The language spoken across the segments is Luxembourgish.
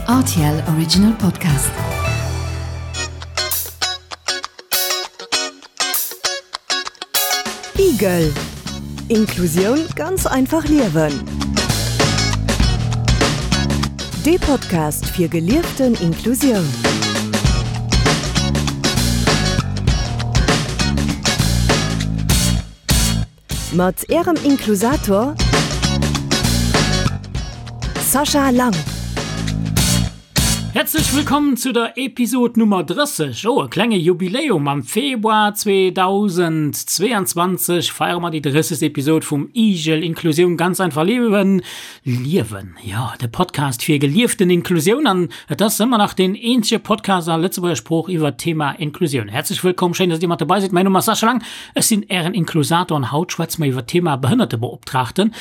RTL Original Podcast. Igel Inklusioun ganz einfach liewen. Dee Podcast fir gelieften Inklusioun. Mat Ärem Inklusator Sascha Lang. Häerzlech wëllkomm zu der Episod Nummer 30. Oh, e klenge Jubiläum! Am Februar 2022 feiere mer déi 30. Episod vum Igel Inklusioun ganz einfach liewen. Liewen, jo, de Podcast fir gelieften Inklusioun. An et ass ëmmer nach deen eenzege Podcast a Lëtzebuerger Sprooch iwwert d'Thema Inklusioun. Häerzlech wëllkomm, schéin, dass Dir mat dobei sidd. Mäin Numm ass Sascha Lang, ech sinn Ären Inklusator an haut schwätze mer iwwert d'Thema Behënnertebeoptraagten.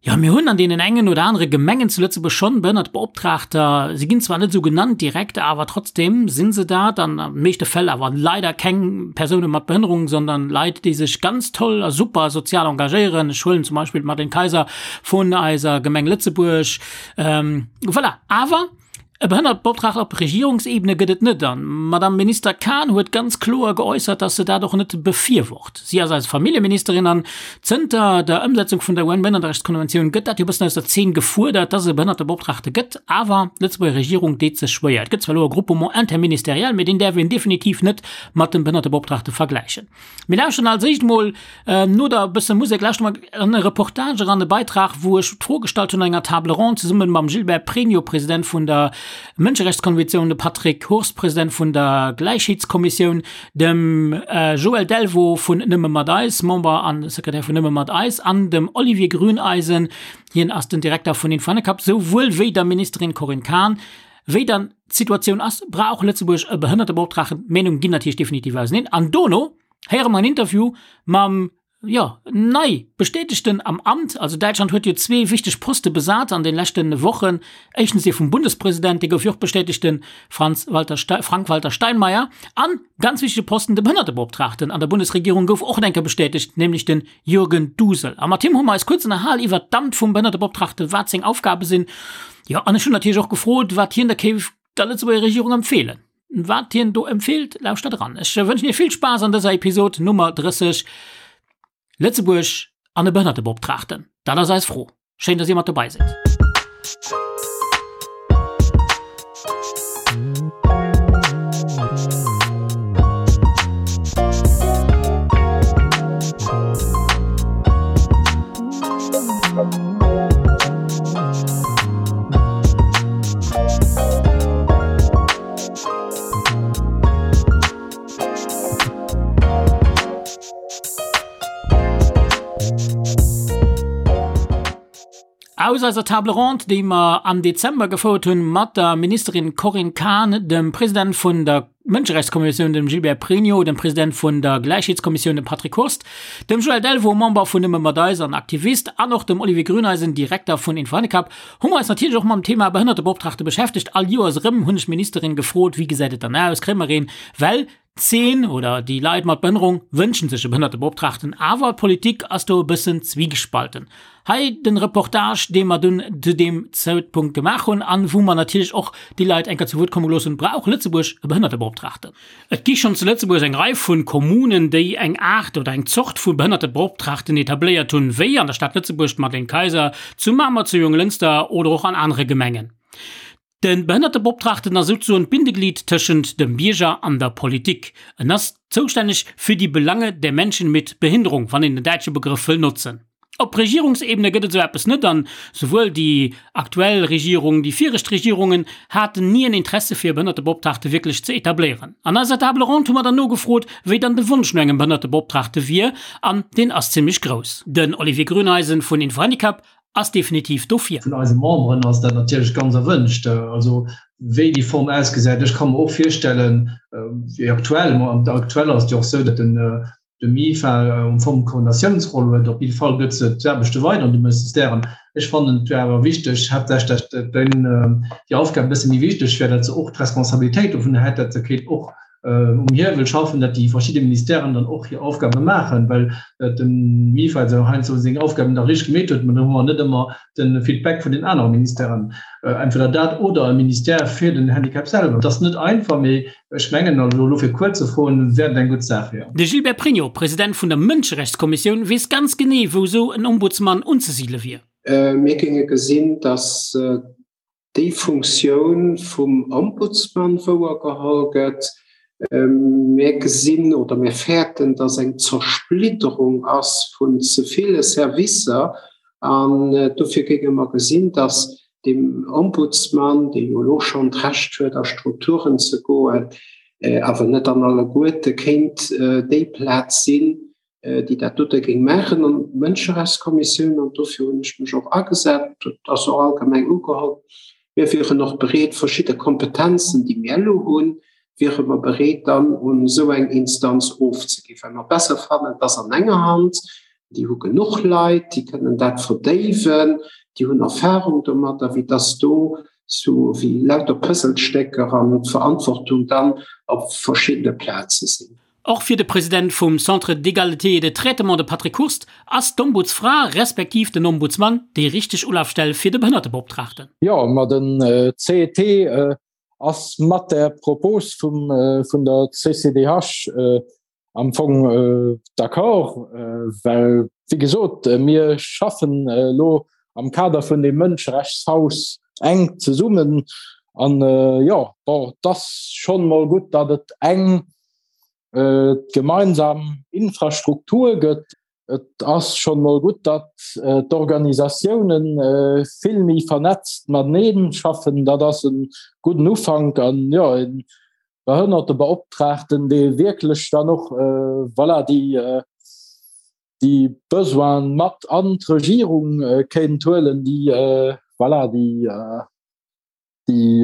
Jo, mir hunn an deenen engen oder anere Gemengen zu Lëtzebuerg schonn Behënnertebeoptraagter. Si ginn zwar net esou genannt direkt, awer trotzdem si se dat an an de meeschte Fäll awer leider keng Persoune mat Behënnerung, sondern Leit, déi sech ganz toll a super sozial engagéieren. Ech huelen zum Beispill d'Madeleine Kayser vun eiser Gemeng Lëtzebuerg. Voilà, awer e Behënnertebeoptraagten op Regierungsebene gëtt et net. An d'Madame Minister Kahn huet ganz kloer geäussert, dass se dat och net befürwort. Si ass eis Familljeministerin an zënter der Ëmsetzung vun der UN-Behënnerterechtskonventioun gëtt dat jo e bëssen aus der Zeen gefuerdert, dass et e Behënnertebeoptraagte gëtt. Awer d'Lëtzebuerger Regierung deet sech schwéier. Et gëtt zwar elo e Groupement interministériel, mee deen däerf een definitiv net mat dem Behënnertebeoptraagte vergläichen. Mir lauschteren als éischt mol no der bësse Musek lauschteren mer an e Reportage eran, e Beitrag, wou ech d'Fro gestallt hunn an enger Table ronde zesumme mam Gilbert Pregno, President vun der Mënscherechtskonventioun, dem Patrick Hurst, President vun der Gläichheetskommissioun, dem Joël Delvaux vun Nëmme mat eis, Member a Sekretär vun Nëmme mat eis, an dem Olivier Grüneisen, hien ass den Direkter vun Info-Handicap, souwuel wéi der Ministerin Corinne Cahen. Wéi dann d'Situatioun ass, brauch Lëtzebuerg e Behënnertebeoptraagten. D'Meenunge ginn natierlech definitiv auseneen. An dono héiere mer en Interview mam, jo, nei Bestätegten am Amt. Also Däitschland huet jo zwee wichteg Poste besat an de leschte Wochen. Éischtens dee vum Bundespresident, dee gouf jo och bestätegt, de Franz Walter Frank-Walter Steinmeier. An, ganz wichtege Posten, de Behënnertebeoptraagten an der Bundesregierung gouf och enke bestätegt, nämlech den Jürgen Dusel. A mat him hu mer eis kuerz ënnerhal iwwert d'Amt vum Behënnertebeoptraagten, wat seng Aufgabe sinn. Jo, an ech hunn natierlech och gefrot, wat hien da kéif der Lëtzebuerger Regierung empfeelen. Wat hien do empfeelt, lauschtert eran. Ech wënschen Iech vill Spaass an dëser Episod Nummer 30, Lëtzebuerg an e Behënnertebeoptraagten, dat ass eis Fro. Schéin, dass Dir mat dobei sidd. Aus eiser Table ronde, déi mer am Dezember gefouert hunn mat der Ministerin Corinne Cahen, dem President vun der Mënscherechtskommissioun, dem Gilbert Pregno, dem President vun der Gläichheetskommissioun, dem Patrick Hurst, dem Joël Delvaux, Member vun Nëmme mat eis an Aktivist, an och dem Olivier Grüneisen, Direkter vun Info-Handicap, hu mer eis natierlech och mam Thema Behënnertebeoptraagte beschäftegt. All Joers erëm hunn ech d'Ministerin gefrot, Wéi gesäit et dann aus? Kréie mer een? Well D'Zeen oder déi Leit mat Behënnerung wënschen sech e Behënnertebeoptraagten, awer d'Politik ass do e bëssen zwiegespalten. Hei den Reportage, dee mer dunn zu deem Zäitpunkt gemaach hunn an wou mer natierlech och déi Leit eng Kéier zu Wuert komme gelooss hunn, Brauch Lëtzebuerg e Behënnertebeoptraagten? Et gi schonn zu Lëtzebuerg eng Rei vu Kommunen, déi eng Aart oder eng Zort vu Behënnertebeoptraagten etabléiert hunn, wéi an der Stad Lëtzebuerg d'Madeleine Kayser, zu Mamer, zu Jonglënster oder och an anere Gemengen. De Behënnertebeoptraagten ass souzesoen d'Bindeglied tëschent dem Bierger an der Politik. En ass zoustänneg für die Belange der Menschen mit Behinderung, wann een den däitsche Begrëff wëll notzen. Op Regierungsebene gëtt et esou eppes net an souwuel déi aktuell Regierung, déi viregt Regierungen haten ni en Interesse fir e Behënnertebeoptraagte wierklech ze etabléieren. An eiser Table ronde hu mer dann nogefrot, wéi dann de Wonsch no engem Behënnertebeoptraagte wier an deen ass zimmlech grouss. Den Olivier Grüneisen vun Info-Handicap ass definitiv dofir. Vun eise Memberen ass dat natierlech ganz erwënscht. Also wéi déi Form ausgesäit, ech ka mer och virstellen, wéi aktuell, ma aktuell ass et jo och esou, datt den de MIFA um Fong d'Koordinatiounsroll huet. Op jidde Fall gëtt se d'Aarbechte weider an de Ministèren. Ech fannen, et wär awer wichteg, haaptsächlech datt déi Aufgab e bësse méi wichteg wär, datt se och d'Responsabilitéit dovun hätt, datt se kéint och. um Hiewel schaffen, datt déi verschidde Ministèren dann och hir Aufgabe maachen, well de MIFA esou heiansdo seng Aufgaben da richteg gemeet huet, mä do hu mer net ëmmer de Feedback vun den anere Ministèren. Entweder dat oder e Ministère fir den Handicap selwer. Et ass net einfach, mee ech mengen, also elo fir kuerz ze froen, wär et eng gutt Saach, jo. De Gilbert Pregno, President vun der Mënscherechtskommissioun, weess ganz genee, wou esou en Ombudsman unzesidele wier. Mir géinge gesinn, datt déi Funktioun vum Ombudsman wouergeholl gëtt. Mir gesinn oder mir fäerten, dass eng Zersplitterung ass vun ze ville Servicer. An dofir géinge mer gesinn, dass dem Ombudsman, dee jo elo schonn d'Recht huet, a Strukturen ze goen, awer net an alleguerte, kéint déi Plaz sinn, déi dat dote géing maachen an d'Mënscherechtskommissioun, an dofir hunn ech mech och agesat, dat ass och allgemeng ugeholl, mir wieren och bereet, verschidde Kompetenzen, déi mir elo hunn, wiere mer bereet dann un esou eng Instanz ofzeginn, well mer besser fannen, et ass an enger Hand, déi hu genuch Leit, déi kënnen dat verdéiwen, déi hunn Erfahrung domadder, wéi dass do sou wéi lauter Puzzlestécker an d'Verantwortung dann op verschiddene Plaze sinn. Och fir de President vum Centre d'égalité et de traitement, de Patrick Hurst, ass d'Ombudsfra respektiv den Ombudsmann déi richteg Ulafstell fir de Behënnertebeoptraagten. Jo, ma den CET ass mat där Propos vum vun der CCDH am Fong d'accord, well wéi gesot, mir schaffen elo am Kader vun deem Mënscherechtshaus enk zesummen an jo, bon, et ass schonn emol gutt, datt et eng gemeinsam Infrastruktur gëtt. Et ass schonn emol gutt, datt d'Organisatioune vill méi vernetzt matenee schaffen. Dat ass e gudden Ufank an jo, e Behënnertebeoptraagten, dee wierklech dann och voilà, déi déi Besoine mat an d'Regierung kéint huelen, déi voilà, déi déi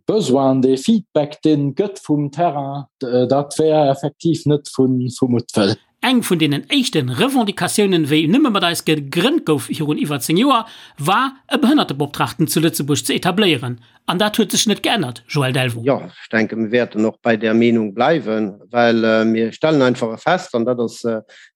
Besoinen, dee Feedback, deen et gëtt vum Terrain, dat wär effektiv net vu Muttwëll. Eng vun deenen éischte Revendicatiounen, wéi Nëmme mat eis gegrënnt gouf virun iwwer 10 Joer, war e Behënnertebeoptraagten zu Lëtzebuerg ze etabléieren. An dat huet sech net geännert, Joël Delvaux. Jo, ech denken, mir wäerten och bei där Meenung bleiwen, well mir stellen einfach fest, an dat ass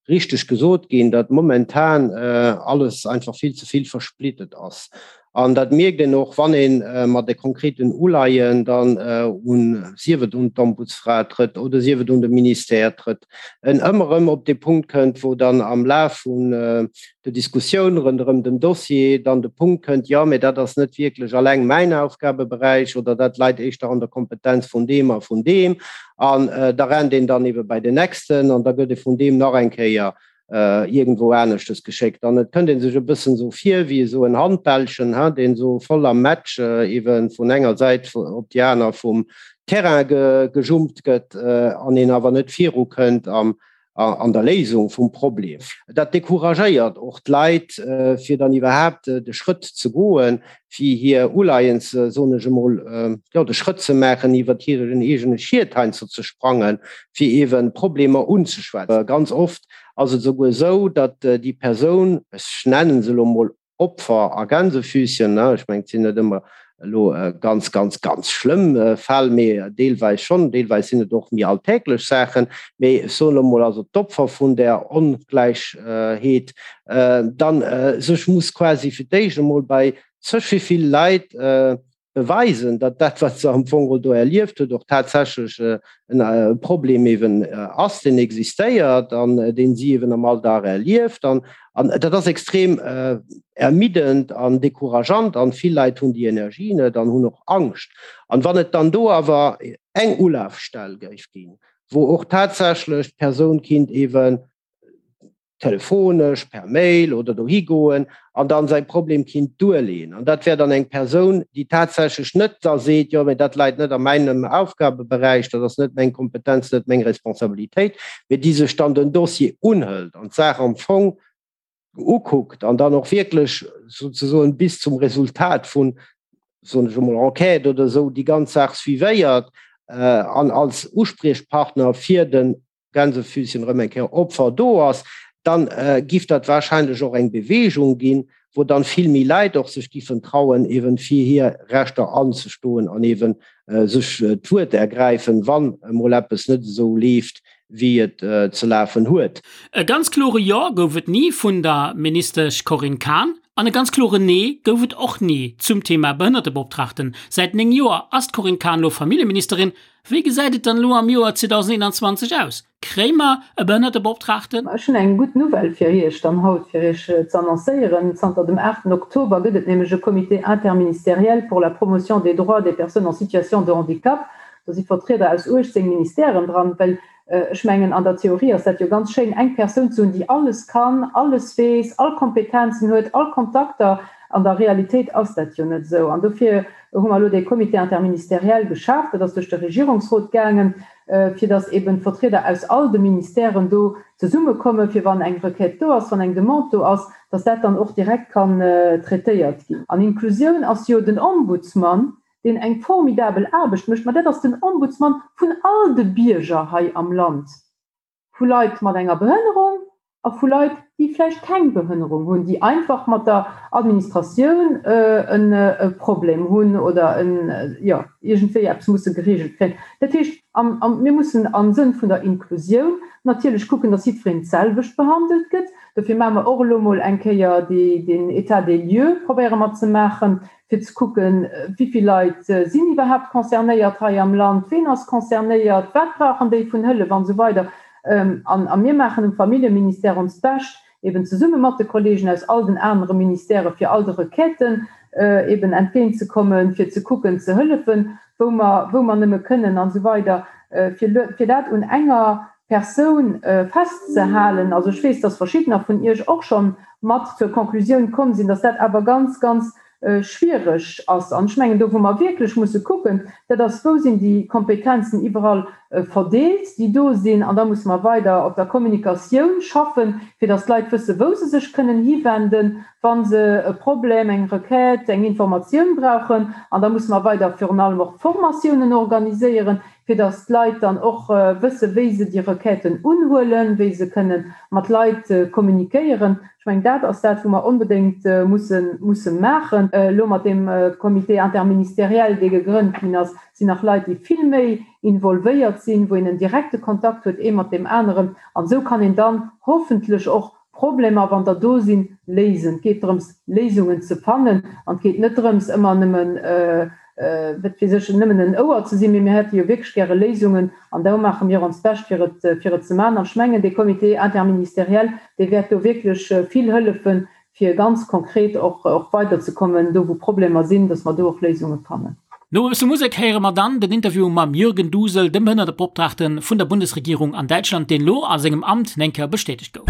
richteg gesot ginn, datt momentan alles einfach vill ze vill versplittet ass. An dat mierkt een och, wann ee mat de konkreten Uleien dann un, sief et un d'Ombudsfra trëtt oder sief et un de Ministère trëtt, en ëmmer erëm op dee Punkt kënnt, wou dann am Laf vun der Diskussioun ronderëm den Dossier dann de Punkt kënnt, jo, mä dat ass net wierklech alleng mäin Aufgabeberäich oder dat läit éischter an der Kompetenz vun deem a vun deem. An da rennt een dann ebe bei den nächsten an da gëtt e vun deem nach eng Kéier iergendwou aneschtes geschéckt. An et kënnt ee sech e bëssen esou vir wéi esou en Handbällchen, hein, deen esou voll am Match eebe vun enger Säit op déi aner vum Terrain gejumpt gëtt an een awer net virukënnt am an der Léisung vum Problem. Dat decouragéiert och d'Leit, fir dann iwwerhaapt de Schrëtt ze goen, fir hir Uleiens, soen ech emol, jo, de Schrëtt ze maachen, iwwert hiren eegene Schiet heiansdo ze sprangen, fir eeben Problemer unzeschwätzen. Ganz oft ass et esouguer esou, datt déi Persoun, ech nennen se elo emol Opfer a Gänsefüßchen, ne, ech mengen, et sinn net ëmmer elo ganz, ganz, ganz schlëmm Fäll, mee deelweis schonn, deelweis sinn et och méi alltäglech Saachen, mee ech soen elo emol, also d'Opfer vun där Ongläichheet dann sech muss quasi fir d'éischt emol bei zeg wéi vill Leit beweisen, datt dat, wat se am Fong do erlieft huet, och tatsächlech e Problem eben ass, deen existéiert an deen si eben am Alldag erlieft. An dat ass extrem ermiddend an decourageant an vill Leit hunn déi Energie net an hunn och Angscht. An wann et dann do awer eng Ulafstell géif ginn, wou och tatsächlech d'Persoun kinnt eben telefonesch, per Mail oder dohi goen an dann säi Problem kinnt duerleeën. An dat wär dann eng Persoun, déi tatsächlech net da seet, jo, mä dat läit net a meinem Aufgabeberäich, dat ass net meng Kompetenz, net meng Responsabilitéit, mä déi sech dann den Dossier unhëlt an d'Saach am Fong ukuckt an dann och wierklech souzesoen bis zum Resultat vun, soen ech emol, Enquête oder esou déi ganz Saach suivéiert an als Uspriechpartner fir den Gänsefüßchen erëm eng Kéier Opfer do ass, dann giff dat wahrscheinlech och eng Bewegung ginn, wou dann vill méi Leit och sech giffen trauen, eben fir hir Rechter anzestoen an eben sech d'Wuert ergräifen, wann emol eppes net esou leeft, wéi et ze lafen huet. E ganz klore Jo gouf et ni vun der Ministesch Corinne Cahen an e ganz kloren Nee gouf et och ni zum Thema Behënnertebeoptraagten. Säit 9 Joer ass d'Corinne Cahen elo Familljeministerin. Wéi gesäit et dann elo am Joer 2021 aus? Kréie mer e Behënnertebeoptraagten? Ech hunn eng gutt Nouvelle fir Iech dann haut, fir Iech ze annoncéieren. Zanter dem 8 Oktober gëtt et nämlech e Comité interministériel pour la promotion des droits des personnes en situation de handicap. Do si Vertrieder aus 18 Ministèren dran, well ech mengen, an der Theorie ass dat jo ganz schéin, eng Persoun ze hunn, déi alles kann, alles weess, all Kompetenzen huet, all Kontakter. An der Realitéit ass dat jo net esou. An dofir hu mer elo dee Comité interministériel geschaaft. Dat ass duerch de Regierungsrot gaangen, fir datt eben d'Vertrieder aus all de Ministèren do zesummekommen, fir wann eng Requête do ass, wann eng Demande do ass, datt dat dann och direkt kann traitéiert ginn. An Inklusioun ass jo den Ombudsman, deen eng formidabel Aarbecht mécht, ma dat ass den Ombudsman vun all de Bierger hei am Land, vu Leit mat enger Behënnerung a vu Leit, déi vläicht keng Behënnerung hunn, déi einfach mat der Administratioun e Problem hunn oder jo, iergendwéi eppes musse gereegelt kréien. Dat heescht, mir mussen am Sënn vun der Inklusioun natierlech kucken, datt jiddwereen d'selwecht behandelt gëtt. Dofir maache mer och elo mol eng Kéier deen État des lieux, probéiere mer ze maachen, fir ze kucken, wéi vill Leit sinn iwwerhaapt concernéiert hei am Land, ween ass concernéiert, wat brauchen déi vun Hëllef an esou weider. A mir maachen um Familljeministère onst Bescht, eben zesumme mat de Kollegen aus all den anere Ministèrë fir all de Requêten eben entgéintzekommen, fir ze kucken ze hëllefen, wou mer, wou mer nëmme kënnen an esou weider, fir, fir dat un enger Persoun festzehalen. Also ech weess, dass verschiddener vun Iech och scho mat zur Konklusioun komm sinn, dass dat awer ganz, ganz schwiereg ass. An ech mengen, do wou mer wierklech musse kucken, dat ass, wou sinn déi Kompetenzen iwwerall verdeelt, déi do sinn. An da musse mer weider op der Kommunikatioun schaffen, fir dass d'Leit wëssen, wou se sech kënnen hiwenden, wa se e Problem, eng Requête, eng Informatioun brauchen. An da musse mer weider virun allem och Formatiounen organiséieren, fir dass d'Leit dann och wëssen, wéi se déi Requêten unhuelen, wéi se kënne mat Leit kommuniquéieren. Ech mengen, dat ass dat, wou mer onbedéngt musse musse maachen. Elo mat deem Comité interministériel, dee gegrënnt ginn ass, sinn nach Leit, déi vill méi involvéiert sinn, wou een en direkte Kontakt huet, ee mat deem aneren. An esou kann een dann hoffentlech och Problemer, wann der do sinn, léisen. Et geet drëms, Léisungen ze fannen an et geet net drëms, ëmmer nëmmen, wat weess ech, nëmmen en Ouer ze sinn, mee mir hätte jo wierklech gäre Léisungen an do maache mir onst Bescht, fir et, fir et ze maachen. An ech mengen, dee Comité interministériel, dee wäert do wierklech vill hëllefen, fir ganz konkret och och weiderzekommen, do wou Problemer sinn, dass mer do och Léisunge fannen. No e bësse Musek héiere mer dann den Interview mam Jürgen Dusel, dem Behënnertebeoptraagte vun der Bundesregierung an Däitschland, deen lo a sengem Amt neng Kéier bestätegt gouf.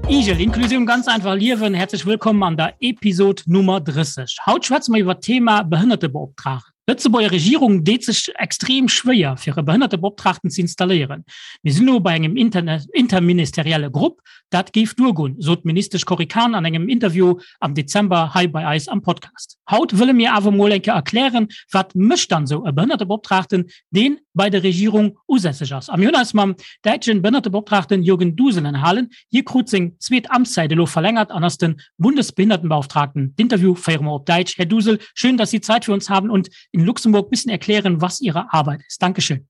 Igel, Inklusioun ganz einfach liewen. Herzlech wëllkomm an der Episod Nummer 30. Haut schwätze mer iwwer d'Thema Behënnertebeoptraagten. D'Lëtzebuerger Regierung deet sech extrem schwéier, fir e Behënnertebeoptraagten ze installéieren. Mir sinn elo bei engem interministerielle Grupp, dat géif duergoen, sot d'Ministesch Cory Cahen an engem Interview am Dezember hei bei eis am Podcast. Haut wëlle mir awer mol eng Kéier erklären, wat mécht dann esou e Behënnertebeoptraagten, deen bei der Regierung usässeg ass. A mir hunn eis mam däitschen Behënnertebeoptraagten Jürgen Dusel ënnerhalen. Hie krut seng zweet Amtszäit elo verlängert an ass den Bundesbehindertenbeauftragten. D'Interview féiere mer op Däitsch. Här Dusel, schön, dass Sie Zeit für uns haben und in Luxemburg bisschen erklären, was Ihre Arbeit ist. Dankeschön.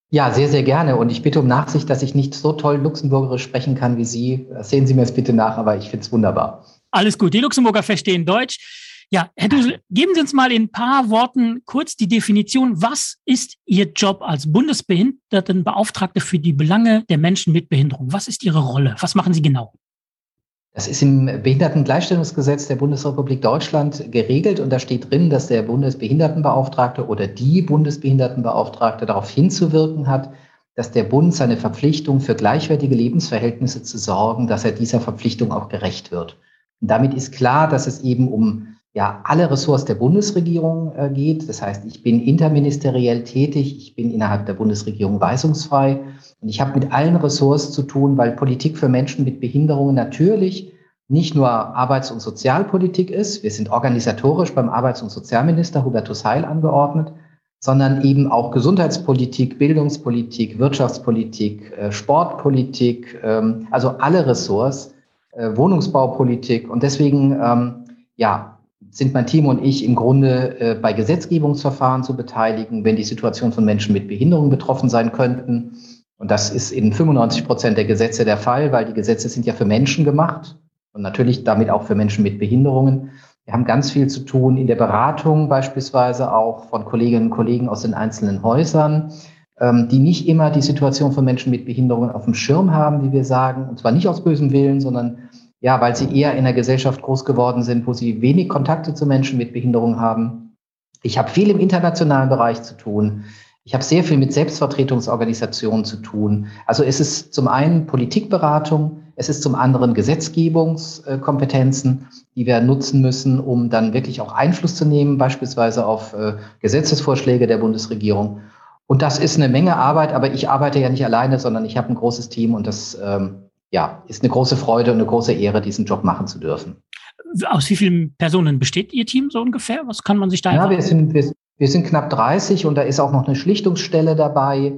Ja, sehr, sehr gerne. Und ich bitte um Nachsicht, dass ich nicht so toll Luxemburgerisch sprechen kann wie Sie. Sehen Sie mir es bitte nach, aber ich finde es wunderbar. Alles gut. Die Luxemburger verstehen Deutsch. Ja, Herr Dusel, geben Sie uns mal in ein paar Worten kurz die Definition. Was ist Ihr Job als Bundesbehindertenbeauftragte für die Belange der Menschen mit Behinderung? Was ist Ihre Rolle? Was machen Sie genau? Das ist im Behindertengleichstellungsgesetz der Bundesrepublik Deutschland geregelt und da steht drin, dass der Bundesbehindertenbeauftragte oder die Bundesbehindertenbeauftragte darauf hinzuwirken hat, dass der Bund seine Verpflichtung für gleichwertige Lebensverhältnisse zu sorgen, dass er dieser Verpflichtung auch gerecht wird. Und damit ist klar, dass es eben um. ja alle Ressorts der Bundesregierung äh, geht. Das heißt, ich bin interministeriell tätig, ich bin innerhalb der Bundesregierung weisungsfrei und ich habe mit allen Ressorts zu tun, weil Politik für Menschen mit Behinderungen natürlich nicht nur Arbeits- und Sozialpolitik ist. Wir sind organisatorisch beim Arbeits- und Sozialminister Hubertus Heil angeordnet, sondern eben auch Gesundheitspolitik, Bildungspolitik, Wirtschaftspolitik, äh, Sportpolitik, ähm, also alle Ressorts, äh, Wohnungsbaupolitik. Und deswegen ähm, ja, sind mein Team und ich im Grunde äh, bei Gesetzgebungsverfahren zu beteiligen, wenn die Situation von Menschen mit Behinderung betroffen sein könnten. Und das ist in 95 Prozent der Gesetze der Fall, weil die Gesetze sind ja für Menschen gemacht und natürlich damit auch für Menschen mit Behinderungen. Wir haben ganz viel zu tun in der Beratung beispielsweise auch von Kolleginnen und Kollegen aus den einzelnen Häusern, ähm, die nicht immer die Situation von Menschen mit Behinderungen auf dem Schirm haben, wie wir sagen, und zwar nicht aus bösem Willen, sondern ja, weil sie eher in einer Gesellschaft groß geworden sind, wo sie wenig Kontakte zu Menschen mit Behinderung haben. Ich habe viel im internationalen Bereich zu tun. Ich habe sehr viel mit Selbstvertretungsorganisationen zu tun. Also es ist zum einen Politikberatung, es ist zum anderen Gesetzgebungskompetenzen, die wir nutzen müssen, um dann wirklich auch Einfluss zu nehmen, beispielsweise auf äh, Gesetzesvorschläge der Bundesregierung. Und das ist eine Menge Arbeit, aber ich arbeite ja nicht alleine, sondern ich habe ein großes Team und das ähm, ja, ist eine große Freude und eine große Ehre, diesen Job machen zu dürfen. Aus wie vielen Personen besteht Ihr Team so ungefähr? Was kann man sich da ja, wir sind, wir, wir sind knapp 30 und da ist auch noch eine Schlichtungsstelle dabei,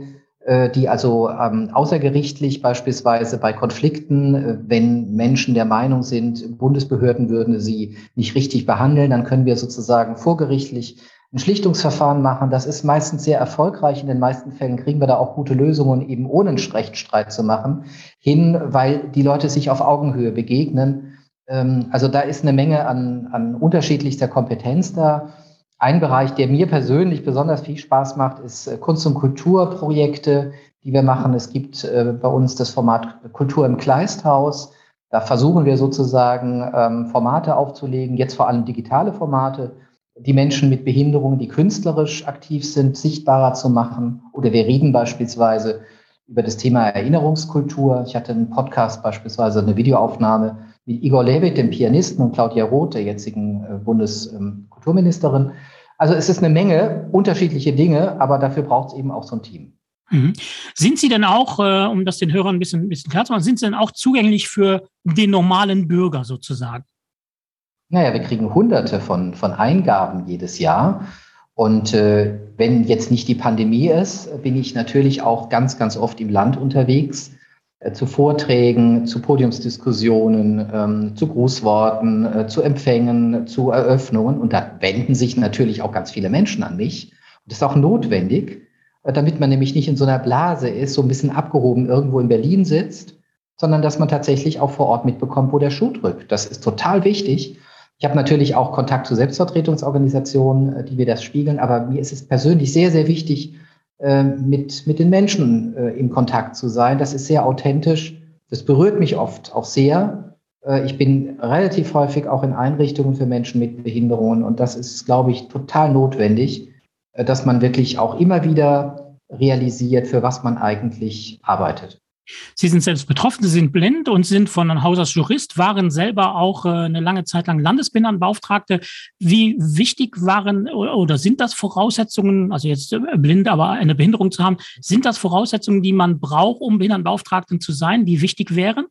äh, die also ähm, außergerichtlich beispielsweise bei Konflikten, äh, wenn Menschen der Meinung sind, Bundesbehörden würden sie nicht richtig behandeln, dann können wir sozusagen vorgerichtlich ein Schlichtungsverfahren machen. Das ist meistens sehr erfolgreich. In den meisten Fällen kriegen wir da auch gute Lösungen, eben ohne einen Rechtsstreit zu machen, hin, weil die Leute sich auf Augenhöhe begegnen. Ähm, also da ist eine Menge an, an unterschiedlichster Kompetenz da. Ein Bereich, der mir persönlich besonders viel Spaß macht, ist äh, Kunst- und Kulturprojekte, die wir machen. Es gibt äh, bei uns das Format Kultur im Kleisthaus. Da versuchen wir sozusagen ähm, Formate aufzulegen, jetzt vor allem digitale Formate, die Menschen mit Behinderungen, die künstlerisch aktiv sind, sichtbarer zu machen. Oder wir reden beispielsweise über das Thema Erinnerungskultur. Ich hatte einen Podcast beispielsweise, eine Videoaufnahme mit Igor Levit, dem Pianisten, und Claudia Roth, der jetzigen äh, Bundeskulturministerin. Also es ist eine Menge unterschiedliche Dinge, aber dafür braucht es eben auch so ein Team. Mhm. Sind Sie denn auch, äh, um das den Hörern ein bisschen, ein bisschen klar zu machen, sind Sie denn auch zugänglich für den normalen Bürger sozusagen? Naja, wir kriegen hunderte von, von Eingaben jedes Jahr. Und äh, wenn jetzt nicht die Pandemie ist, bin ich natürlich auch ganz, ganz oft im Land unterwegs, äh, zu Vorträgen, zu Podiumsdiskussionen, ähm, zu Grußworten, äh, zu Empfängen, zu Eröffnungen. Und da wenden sich natürlich auch ganz viele Menschen an mich. Und das ist auch notwendig, äh, damit man nämlich nicht in so einer Blase ist, so ein bisschen abgehoben irgendwo in Berlin sitzt, sondern dass man tatsächlich auch vor Ort mitbekommt, wo der Schuh drückt. Das ist total wichtig. Ich habe natürlich auch Kontakt zu Selbstvertretungsorganisationen, äh, die mir das spiegeln, aber mir ist es persönlich sehr, sehr wichtig, äh, mit, mit den Menschen äh, im Kontakt zu sein. Das ist sehr authentisch. Das berührt mich oft auch sehr. Ich bin relativ häufig auch in Einrichtungen für Menschen mit Behinderungen und das ist, glaube ich, total notwendig, dass man wirklich auch immer wieder realisiert, für was man eigentlich arbeitet. Sie sind selbst betroffen, Sie sind blind und sind von Haus aus Jurist, waren selber auch äh, eine lange Zeit lang Landesbehindertenbeauftragte. Wie wichtig waren oder sind das Voraussetzungen, also jetzt äh, blind, aber eine Behinderung zu haben, sind das Voraussetzungen, die man braucht, um Behindertenbeauftragten zu sein, die wichtig wären?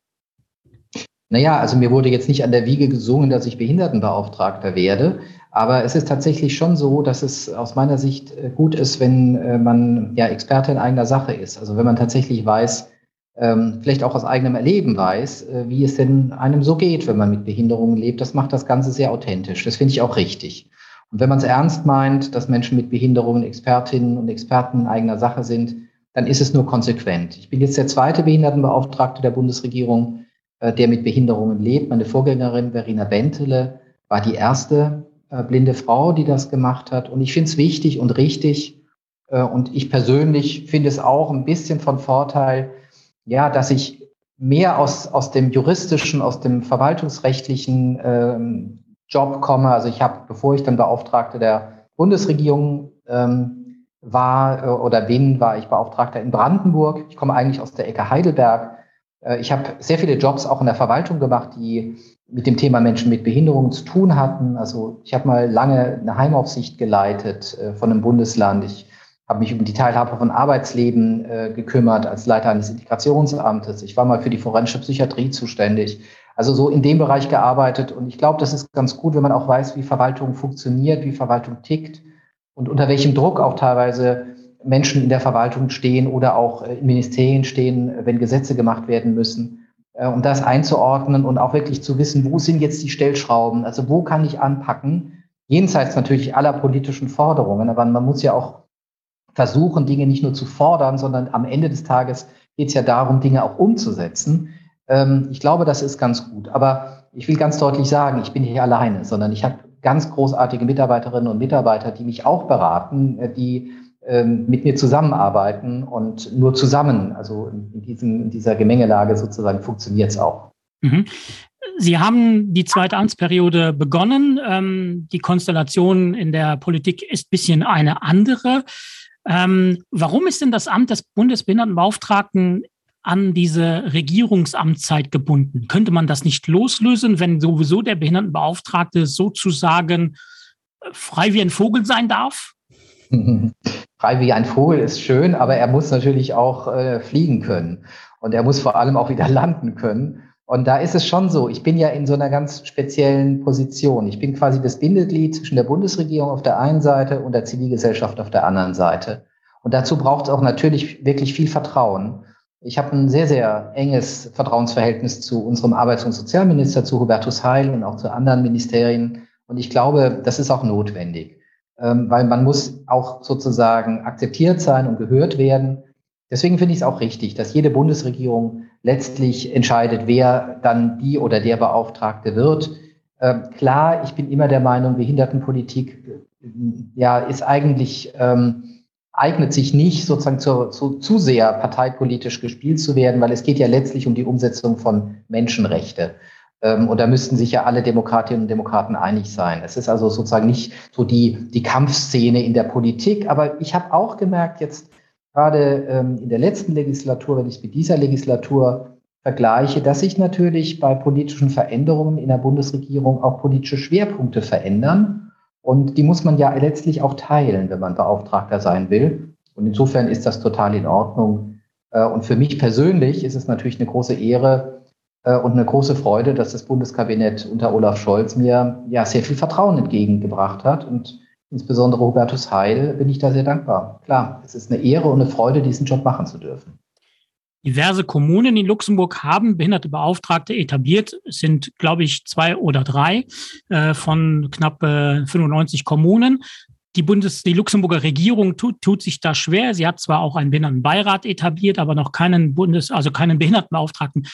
Naja, also mir wurde jetzt nicht an der Wiege gesungen, dass ich Behindertenbeauftragter werde. Aber es ist tatsächlich schon so, dass es aus meiner Sicht äh, gut ist, wenn man ja Experte in eigener Sache ist. Also wenn man tatsächlich weiß, ähm, vielleicht auch aus eigenem Erleben weiß, äh, wie es denn einem so geht, wenn man mit Behinderungen lebt. Das macht das Ganze sehr authentisch. Das finde ich auch richtig. Und wenn man es ernst meint, dass Menschen mit Behinderungen Expertinnen und Experten in eigener Sache sind, dann ist es nur konsequent. Ich bin jetzt der zweite Behindertenbeauftragte der Bundesregierung, äh, der mit Behinderungen lebt. Meine Vorgängerin Verena Bentele war die erste äh, blinde Frau, die das gemacht hat. Und ich finde es wichtig und richtig. Und ich persönlich finde es auch ein bisschen von Vorteil, ja, dass ich mehr aus, aus dem juristischen, aus dem verwaltungsrechtlichen ähm, Job komme. Also ich habe, bevor ich dann Beauftragte der Bundesregierung ähm, war äh, oder bin, war ich Beauftragter in Brandenburg. Ich komme eigentlich aus der Ecke Heidelberg. Äh, ich habe sehr viele Jobs auch in der Verwaltung gemacht, die mit dem Thema Menschen mit Behinderungen zu tun hatten. Also ich habe mal lange eine Heimaufsicht geleitet äh, von einem Bundesland. Ich habe mich um die Teilhabe von Arbeitsleben äh, gekümmert als Leiter eines Integrationsamtes. Ich war mal für die forensische Psychiatrie zuständig. Also so in dem Bereich gearbeitet. Und ich glaube, das ist ganz gut, wenn man auch weiß, wie Verwaltung funktioniert, wie Verwaltung tickt und unter welchem Druck auch teilweise Menschen in der Verwaltung stehen oder auch äh, in Ministerien stehen, wenn Gesetze gemacht werden müssen, äh, um das einzuordnen und auch wirklich zu wissen, wo sind jetzt die Stellschrauben, also wo kann ich anpacken, jenseits natürlich aller politischen Forderungen, aber man muss ja auch versuchen, Dinge nicht nur zu fordern, sondern am Ende des Tages geht es ja darum, Dinge auch umzusetzen. Ähm, ich glaube, das ist ganz gut. Aber ich will ganz deutlich sagen, ich bin nicht alleine, sondern ich habe ganz großartige Mitarbeiterinnen und Mitarbeiter, die mich auch beraten, äh, die ähm, mit mir zusammenarbeiten und nur zusammen, also in, diesem, in dieser Gemengelage sozusagen funktioniert es auch. Mhm. Sie haben die zweite Amtsperiode begonnen. Ähm, die Konstellation in der Politik ist bisschen eine andere. Ähm, warum ist denn das Amt des Bundesbehindertenbeauftragten an diese Regierungsamtszeit gebunden? Könnte man das nicht loslösen, wenn sowieso der Behindertenbeauftragte sozusagen äh, frei wie ein Vogel sein darf? Frei wie ein Vogel ist schön, aber er muss natürlich auch äh, fliegen können und er muss vor allem auch wieder landen können. Und da ist es schon so, ich bin ja in so einer ganz speziellen Position. Ich bin quasi das Bindeglied zwischen der Bundesregierung auf der einen Seite und der Zivilgesellschaft auf der anderen Seite. Und dazu braucht es auch natürlich wirklich viel Vertrauen. Ich habe ein sehr, sehr enges Vertrauensverhältnis zu unserem Arbeits- und Sozialminister, zu Hubertus Heil und auch zu anderen Ministerien. Und ich glaube, das ist auch notwendig, ähm, weil man muss auch sozusagen akzeptiert sein und gehört werden. Deswegen finde ich es auch richtig, dass jede Bundesregierung letztlich entscheidet, wer dann die oder der Beauftragte wird. Ähm, klar, ich bin immer der Meinung, Behindertenpolitik äh, ja, ist eigentlich ähm, eignet sich nicht sozusagen zu, zu, zu sehr parteipolitisch gespielt zu werden, weil es geht ja letztlich um die Umsetzung von Menschenrechte. Ähm, und da müssten sich ja alle Demokratinnen und Demokraten einig sein. Es ist also sozusagen nicht so die, die Kampfszene in der Politik. Aber ich habe auch gemerkt, jetzt gerade ähm, in der letzten Legislatur, wenn ich es mit dieser Legislatur vergleiche, dass sich natürlich bei politischen Veränderungen in der Bundesregierung auch politische Schwerpunkte verändern. Und die muss man ja letztlich auch teilen, wenn man Beauftragter sein will. Und insofern ist das total in Ordnung. Äh, und für mich persönlich ist es natürlich eine große Ehre äh, und eine große Freude, dass das Bundeskabinett unter Olaf Scholz mir ja sehr viel Vertrauen entgegengebracht hat. Und insbesondere Hubertus Heil bin ich da sehr dankbar. Klar, es ist eine Ehre und eine Freude, diesen Job machen zu dürfen. Diverse Kommunen in Luxemburg haben behinderte Beauftragte etabliert, es sind, glaube ich, zwei oder drei äh, von knapp äh, 95 Kommunen. Die, Bundes die Luxemburger Regierung tut, tut sich da schwer. Sie hat zwar auch einen Behindertenbeirat etabliert, aber noch keinen Bundes also keinen Behindertenbeauftragten.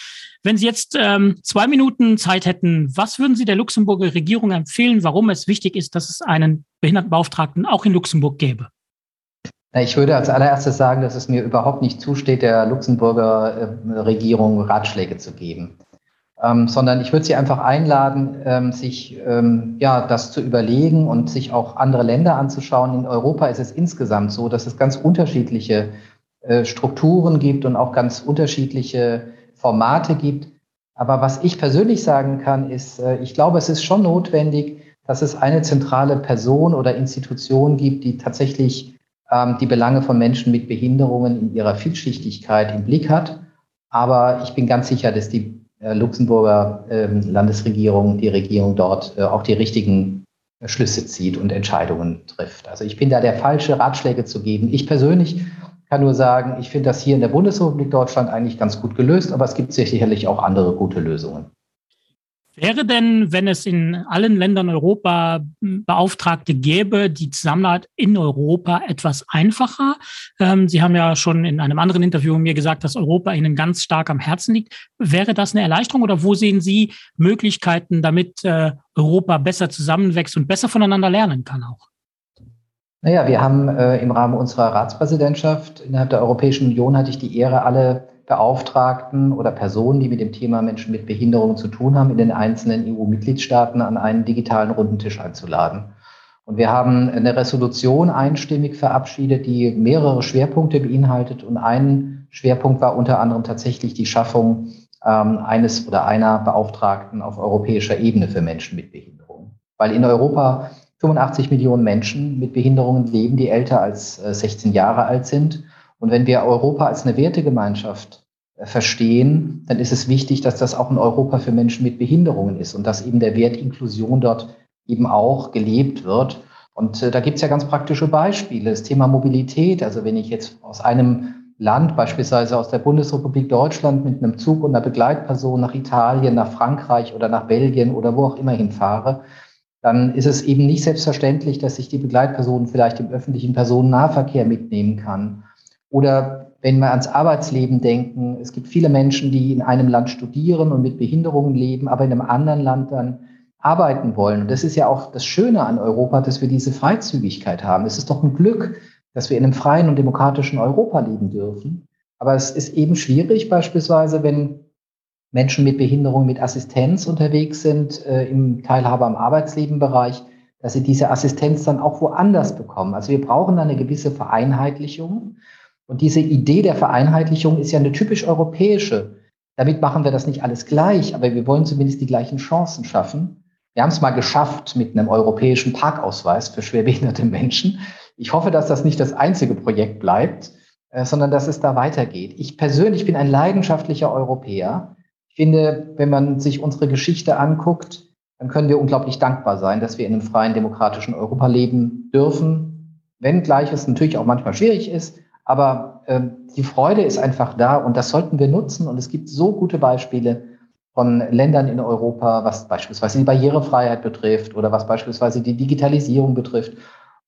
Wenn Sie jetzt ähm, zwei Minuten Zeit hätten, was würden Sie der Luxemburger Regierung empfehlen, warum es wichtig ist, dass es einen Behindertenbeauftragten auch in Luxemburg gäbe? Ich würde als allererstes sagen, dass es mir überhaupt nicht zusteht, der Luxemburger äh, Regierung Ratschläge zu geben. Ähm, sondern ich würde sie einfach einladen, ähm, sich ähm, ja, das zu überlegen und sich auch andere Länder anzuschauen. In Europa ist es insgesamt so, dass es ganz unterschiedliche äh, Strukturen gibt und auch ganz unterschiedliche Formate gibt. Aber was ich persönlich sagen kann, ist, äh, ich glaube, es ist schon notwendig, dass es eine zentrale Person oder Institution gibt, die tatsächlich ähm, die Belange von Menschen mit Behinderungen in ihrer Vielschichtigkeit im Blick hat. Aber ich bin ganz sicher, dass die äh, Luxemburger ähm, Landesregierung, die Regierung dort äh, auch die richtigen Schlüsse zieht und Entscheidungen trifft. Also ich bin da der falsche Ratschläge zu geben. Ich persönlich kann nur sagen, ich finde das hier in der Bundesrepublik Deutschland eigentlich ganz gut gelöst, aber es gibt sicherlich auch andere gute Lösungen. Wäre denn, wenn es in allen Ländern Europa Beauftragte gäbe, die Zusammenarbeit in Europa etwas einfacher? Ähm, Sie haben ja schon in einem anderen Interview mir gesagt, dass Europa Ihnen ganz stark am Herzen liegt. Wäre das eine Erleichterung oder wo sehen Sie Möglichkeiten, damit äh, Europa besser zusammenwächst und besser voneinander lernen kann auch? Naja, wir haben äh, im Rahmen unserer Ratspräsidentschaft innerhalb der Europäischen Union hatte ich die Ehre, alle Beauftragten oder Personen, die mit dem Thema Menschen mit Behinderung zu tun haben, in den einzelnen EU-Mitgliedstaaten an einen digitalen runden Tisch einzuladen. Und wir haben eine Resolution einstimmig verabschiedet, die mehrere Schwerpunkte beinhaltet. Und ein Schwerpunkt war unter anderem tatsächlich die Schaffung ähm, eines oder einer Beauftragten auf europäischer Ebene für Menschen mit Behinderung. Weil in Europa 85 Millionen Menschen mit Behinderungen leben, die älter als 16 äh, Jahre alt sind. Und wenn wir Europa als eine Wertegemeinschaft äh, verstehen, dann ist es wichtig, dass das auch ein Europa für Menschen mit Behinderungen ist und dass eben der Wert Inklusion dort eben auch gelebt wird. Und äh, da gibt es ja ganz praktische Beispiele. Das Thema Mobilität, also wenn ich jetzt aus einem Land, beispielsweise aus der Bundesrepublik Deutschland, mit einem Zug und einer Begleitperson nach Italien, nach Frankreich oder nach Belgien oder wo auch immer hinfahre, dann ist es eben nicht selbstverständlich, dass ich die Begleitperson vielleicht im öffentlichen Personennahverkehr mitnehmen kann. Oder wenn wir ans Arbeitsleben denken, es gibt viele Menschen, die in einem Land studieren und mit Behinderungen leben, aber in einem anderen Land dann arbeiten wollen. Und das ist ja auch das Schöne an Europa, dass wir diese Freizügigkeit haben. Es ist doch ein Glück, dass wir in einem freien und demokratischen Europa leben dürfen. Aber es ist eben schwierig, beispielsweise, wenn Menschen mit Behinderung, mit Assistenz unterwegs sind, äh, im Teilhabe am Arbeitslebenbereich, dass sie diese Assistenz dann auch woanders bekommen. Also wir brauchen da eine gewisse Vereinheitlichung. Und diese Idee der Vereinheitlichung ist ja eine typisch europäische. Damit machen wir das nicht alles gleich, aber wir wollen zumindest die gleichen Chancen schaffen. Wir haben es mal geschafft mit einem europäischen Parkausweis für schwerbehinderte Menschen. Ich hoffe, dass das nicht das einzige Projekt bleibt, äh, sondern dass es da weitergeht. Ich persönlich bin ein leidenschaftlicher Europäer. Ich finde, wenn man sich unsere Geschichte anguckt, dann können wir unglaublich dankbar sein, dass wir in einem freien, demokratischen Europa leben dürfen, wenngleich es natürlich auch manchmal schwierig ist. Aber äh, die Freude ist einfach da und das sollten wir nutzen. Und es gibt so gute Beispiele von Ländern in Europa, was beispielsweise die Barrierefreiheit betrifft oder was beispielsweise die Digitalisierung betrifft.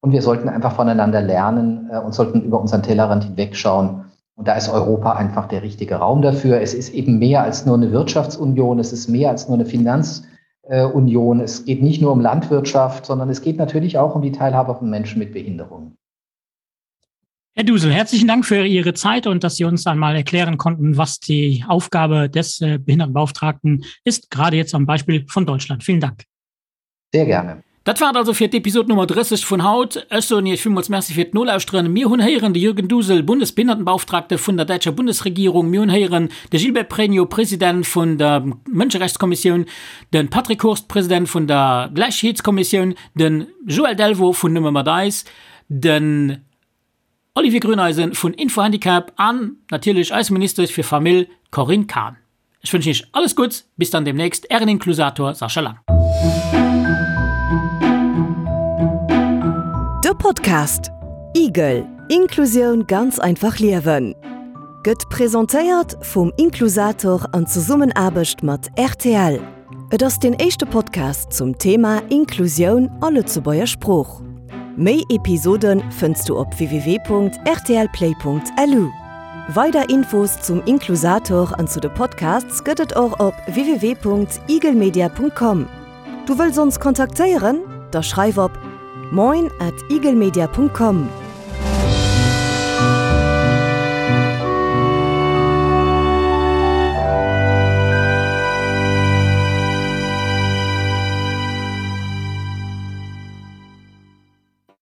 Und wir sollten einfach voneinander lernen äh, und sollten über unseren Tellerrand hinwegschauen. Und da ist Europa einfach der richtige Raum dafür. Es ist eben mehr als nur eine Wirtschaftsunion, es ist mehr als nur eine Finanzunion. Es geht nicht nur um Landwirtschaft, sondern es geht natürlich auch um die Teilhabe von Menschen mit Behinderungen. Herr Dusel, herzlichen Dank für Ihre Zeit und dass Sie uns einmal erklären konnten, was die Aufgabe des äh, Behindertenbeauftragten ist, gerade jetzt am Beispiel von Deutschland. Vielen Dank. Sehr gerne. Dat war et also fir d'Episod Nummer 30 vun haut. Ech soen Iech villmools Merci fir d'Nolauschteren. Mir hunn héieren de Jürgen Dusel, Bundesbehindertenbeauftragte vun der däitscher Bundesregierung. Mir hunn héieren de Gilbert Pregno, President vun der Mënscherechtskommissioun, de Patrick Hurst, President vun der Gläichheetskommissioun, de Joël Delvaux vun Nëmme mat eis, den Olivier Grüneisen vun Info-Handicap an natierlech eis Ministesch fir Famill, d'Corinne Cahen. Ech wënschen Iech alles Gutts, bis dann demnächst, Ären Inklusator Sascha Lang. De Podcast Igel, Inklusioun ganz einfach liewen gëtt presentéiert vum Inklusator an Zesummenaarbecht mat rtl. Et ass deen éischte Podcast zum Thema Inklusioun a Lëtzebuerger Sprooch. Méi Episode fënns du op www.rtlplay.lu. Weider Infos zum Inklusator an zu de Podcasts gëtt et och op www.igelmedia.com. Du wëlls ons kontaktéieren? Da schreif op moin at igelmedia.com.